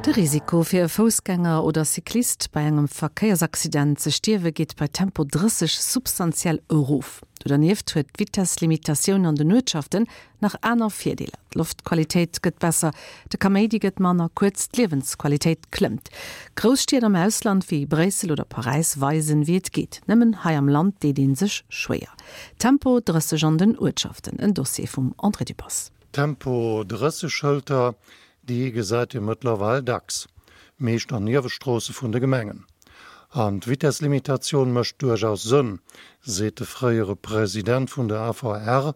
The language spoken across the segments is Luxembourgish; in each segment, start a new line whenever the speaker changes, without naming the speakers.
De Risiko fir e Foussgänger oder Cyclist bei engem Verkéiersaccident ze stierwe geet bei Tempo 30 substantiell erof. Do dernieft huet d'Vitesslimitatioun an den Uertschaften nach aner Virdeeler, D'Loftqualitéit gëtt besser, de Kaméidi gëtt manner, kuerz d'Liewensqualitéit klëmmt. Grouss Stied am Ausland wéi Bréissel oder Paräis weisen, wéi et geet. Nëmmen hei am Land deet ee sech schwéier. Tempo 30 an den Uertschaften, en Dossier vum André Dübbers.
Tempo 30 Schëlter, déi gesäit ee mëttlerweil dacks, meescht an Niewestroosse vun de Gemengen. An d'Vitesslimitatioun mécht duerchaus Sënn, seet de fréiere President vun der AVR,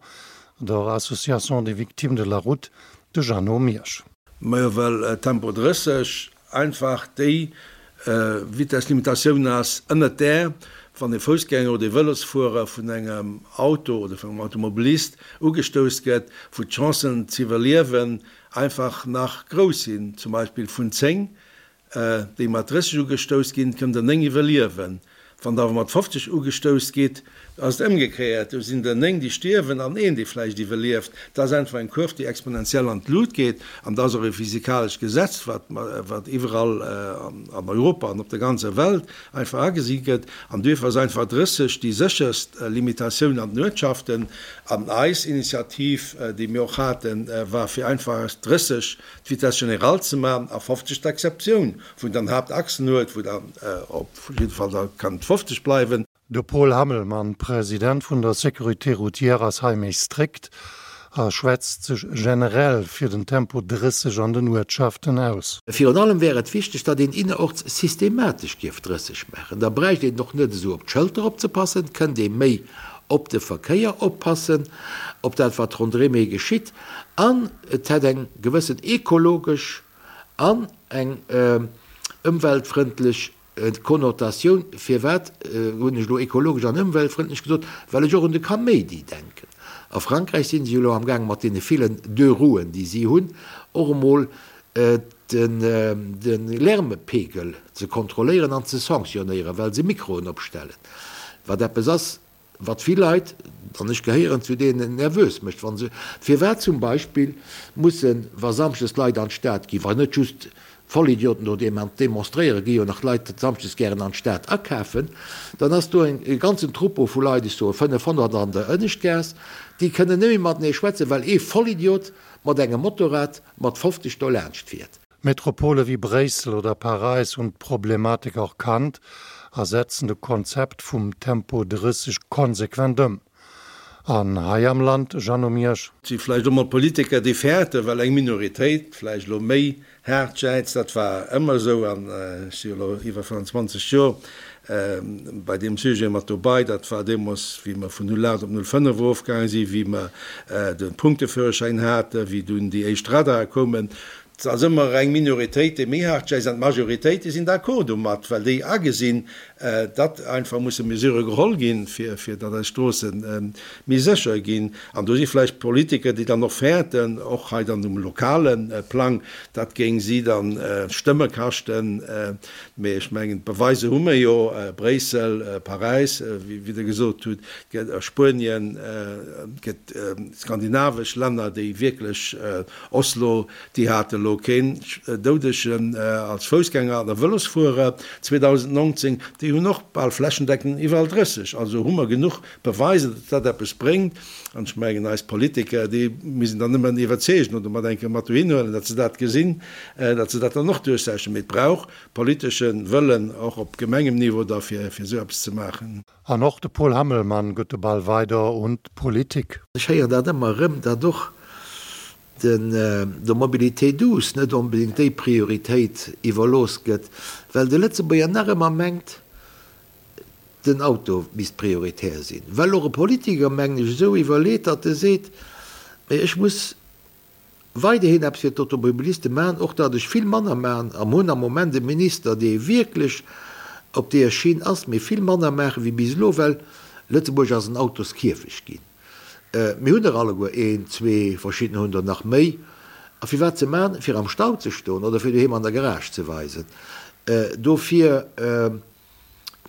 der Association des Victimes de la Route, de Jeannot Miersch.
Majo, well Tempo 30 einfach déi Vitesslimitatioun ass, ënnert där, wann e Foussgänger oder e Vëlosfuerer vun engem Auto oder vun engem Automobilist ugestouss gëtt, wou d'Chancen z'iwwerliewen einfach nach grouss sinn. Zum Beispill vun 10 déi mat 30 ugestouss ginn, kënnen der 9 iwwerliewen. Wann der awer mat 50 ugestouss gitt, ass et ëmgekéiert, do sinn der 9, déi stierwen an een, dee vläicht iwwerlieft. Dat ass einfach eng Kurv, déi exponentiell an d'Lut geet. An dat ass och e physikalescht Gesetz, wat, wat iwwerall an Europa an op der ganzer Welt einfach agesi gëtt. An duerfir ass einfach 30 déi sécherst Limitatioun an den Uertschaften. An eis Initiativ, déi mir och haten, war fir einfach aus 30 d'Vitesse générale ze maachen a 50 d'Exceptioun, wou een dann Haaptachsen huet, wou dann op jidde Fall da kann et 50 bleiwen.
De Paul Hammelmann, President vun der Sécurité routière ass hei méi strikt a schwätzt sech generell fir den Tempo 30 an den Uertschaften aus.
Virun allem wär et wichteg, datt een innerorts systematesch dierf 30 maachen. Da bräicht een och net esou op d'Schëlter opzepassen, kënnt ee méi op de Verkéier oppassen, op dat wat ronderém ee geschitt an et hätt eng gewëssen ekologesch an eng ëmweltfrëndlech Konnotatioun. Firwat hunn ech elo ekologesch an ëmweltfrëndlech gesot? Well ech och un de Kaméidi denken. A Frankräich si se jo elo amgaang mat deene villen Deux roues, déi si hunn, och emol de Lärmepegel ze kontrolléieren an ze sanctionnéieren, well se Mikroen opstellen, wat eppes ass, wat vill Leit, an ech gehéieren zu deenen, nervös mécht, wa se, firwat zum Beispill mussen, wa samschdes Leit an d'Stad ginn, wa net just Vollidioten do demonstréieren, gi jo nach Leit samschdes gären an d'Stad akafen, dann ass do e ganzen Troupeau vu Leit, ech soe 500 an der Ënneschtgaass, déi kënnen net méi matenee schwätzen, well ee Vollidiot mat engem Motorrad mat 50 do laanscht fiert.
Metropole wéi Bréissel oder Paräis hunn d'Problematik erkannt a setzen de Konzept vum Tempo 30 konsequent ëm. An hei am Land, Jeannot Miersch?
Et si vläicht och mol Politiker, déi fäerten, well eng Minoritéit vläicht elo méi haart jäizt. Dat war ëmmer esou an ech si jo elo iwwer 25 Joer bei deem Sujet mat dobei. Dat war deemools, wéi mer vun 08 op 05 erofgaange sinn, wéi mer de Punkteführerschäin haten, wéi dunn déi éischt Radare koumen. Et ass ëmmer eng Minoritéit, déi méi haart jäizt, an d'Majoritéit, déi sinn d'accord domat, well déi agesinn, datt einfach musse Mesurë geholl ginn, fir datt eis Stroosse méi sécher ginn. An do si vläicht Politiker, déi dann och fäerten, och hei dann um lokale Plang, dat géing si da Stëmme kaschten. Mee ech mengen, d'Beweise hu mir jo, Bréissel, Paräis, wéi Der gesot hutt, Spuenien, et gëtt skandinavesch Länner, déi wierklech Oslo, déi hate elo keen Doudegen als Foussgänger an a Vëlosfuerer 2019, déi hunn och bal flächendeckend iwwerall 30. Also hu mer genuch Beweiser, datt dat eppes bréngt. An ech mengen, eis Politiker, déi missten dann nëmmen iwwerzeegen oder mat eng Kéier mat dohin huelen, datt se dat gesinn, datt se dat dann och duerchsetzen. Mee et brauch politesche Wëllen, och op Gemengemniveau da fir esou eppes ze maachen.
An och de Paul Hammelmann gëtt de Ball weider un d'Politik.
Ech héieren dat ëmmer erëm, datt och den der Mobilité douce net onbedéngt déi Prioritéit iwwerlooss gëtt, well de Lëtzebuerger nach ëmmer mengt, den Auto misst prioritär sinn. Well och e Politiker, mengen ech, esou iwwerleet, datt e seet, Mee ech muss weiderhin eppes fir d'Automobiliste maachen, och datt ech vill manner maachen, a mer hunn am Moment e Minister, dee wierklech op deeër Schinn ass, mee vill manner maache wéi bis elo, well Lëtzebuerg ass en Autoskierfecht ginn. Mir hunn der alleguer een, zwee, verschiddener hunn der nach méi. A firwat ze maachen? Fir am Stau ze stoen oder fir doheem an der Garage ze weisen? Dofir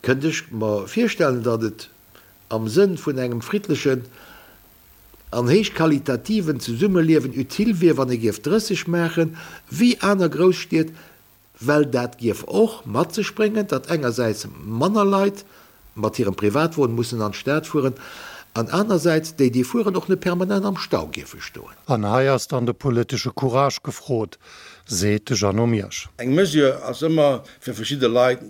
kënnt ech mer virstellen, datt et am Sënn vun engem friddlechen an héichqualitativen Zesummeliewen utile wier, wann ee géif 30 maachen, wéi aner Grousstied. Well dat gierf och mat sech bréngen, datt engersäits manner Leit mat hirem Privatwon mussen an d'Stad fueren an anersäits déi, déi fueren, och net permanent am Stau gierfe stoen.
An hei ass dann de politesche Courage gefrot, seet de Jeannot Miersch.
Eng Mesure ass ëmmer fir verschidde Leit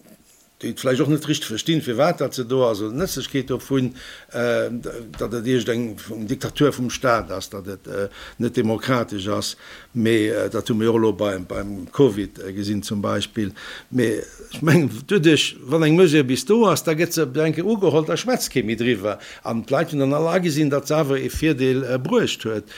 déi et vläicht och net richteg verstinn, firwat dat se do ass, oder d'Nëtzlechkeet dovun, datt et iergend eng Diktatur vum Staat ass, datt et net demokratesch ass. Mee dat hu mir jo och elo beim Covid gesinn zum Beispill. Mee ech mengen, doduerch, wann eng Mesure bis do ass, da gëtt se op eng Kéier ugeholl, da schwätzt kee méi driwwer. An d'Leit hunn dann all agesinn, datt se awer ee Virdeel bruecht huet,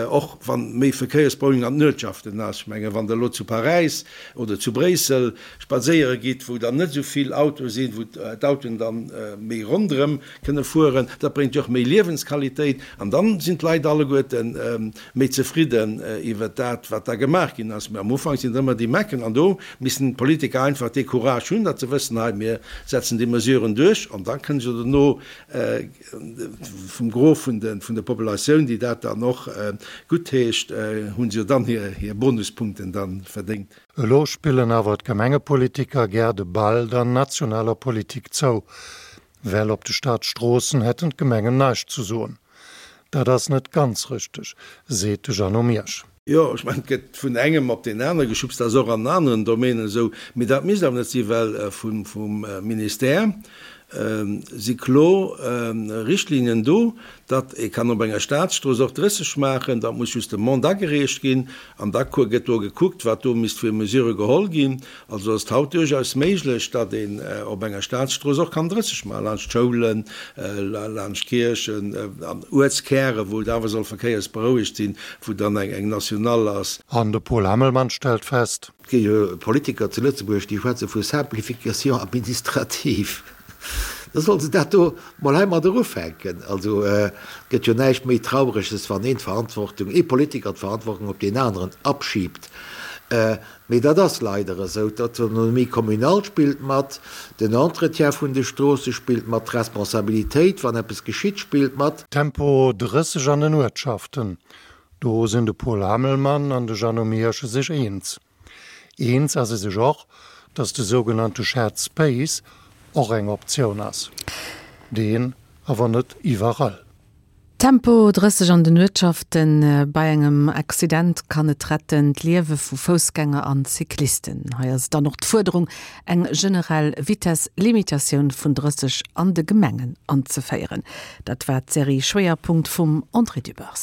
och wann méi Verkéiersberouegung an den Uertschaften ass. Ech mengen, wann Der elo zu Paräis oder zu Bréissel spadséiere gitt, wou dann net esou vill Autoe sinn, wou d'Autoen dann méi ronderëm kënne fueren, dat bréngt jo och méi Liewensqualitéit an dann sinn d'Leit alleguerte méi zefridden iwwert dat, wat da gemaach ginn ass. Mä am Ufank sinn et ëmmer déi Mecken an do missten d'Politiker einfach dee Courage hunn, datt se wëssen, hei mir setzen déi Mesuren duerch an da kënne se dono vum Gros vun de Populatioun, déi dat dann och guttheescht, hu se jo dann hir Bonuspunkten da verdéngt.
Elo spillen awer d'Gemengepolitiker gär de Ball der nationaler Politik zou, well op de Staatsstroossen hätten d'Gemengen näischt zu soen. Dat ass net ganz richteg, seet de Jeannot Miersch.
Jo, ech mengen, et gëtt vun engem op deen anere geschubst, dat ass och an aneren Domänen esou, mee dat misst awer net sinn, well vum Ministère si kloer Richtlinien do, datt ee kann op enger Staatsstrooss och 30 maachen, dat muss just Demande agereecht ginn an da gëtt do gekuckt, wat do misst fir Mesure geholl ginn. Also ass et haut duerchaus méiglech, datt een op enger Staatsstrooss och kann 30 maachen, laanscht Schoulen, laanscht Kierchen an Uertskäre wou et awer soll verkéiersberouegt sinn, wou dann eng Nationale ass.
An de Paul Hammelmann stellt fest.
Et gi jo Politiker zu Lëtzebuerg, déi schwätze vu Simplification administrative. Da solle se dat do mol heimadder ufänken. Also et gëtt jo näischt méi Traureges, wann een d'Verantwortung, ee Politiker d'Verantwortung op deen aneren abschiebt. Mee dat ass leider esou. D'Autonomie communale spillt mat, den Entretien vun de Stroosse spillt mat, d'Responsabilitéit, wann eppes geschitt, spillt mat.
Tempo 30 an den Uertschaften, Do sinn de Paul Hammelmann an de Jeannot Miersch sech eens. Eens ass ee sech och, datt de sougenannte Shared Space och eng Optioun ass. Deen awer net iwwerall.
Tempo 30 an den Uertschaften, Bei engem Accident kann et retten d'Liewe vu Foussgänger an Cyclisten. Hei ass et dann och d'Fuerderung, eng generell Vitess-Limitatioun vun 30 an de Gemengen anzeféieren. Dat war d'Serie Schwéierpunkt vum André Dübbers.